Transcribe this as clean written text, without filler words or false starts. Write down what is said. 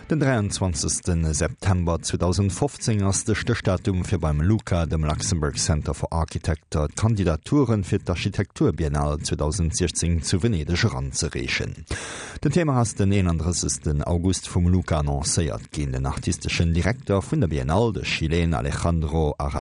Den 23 September 2015 ass de Stéchdatum fir beim LUCA, dem Luxembourg Center for Architecture, d'Kandidaturen fir d'Architekturbiennale 2016 zu Venedeg eranzereechen. Den Thema ass den 31 August vum LUCA annoncéiert ginn. Den artisteschen Direkter vun der Biennale, de Chileen Alejandro.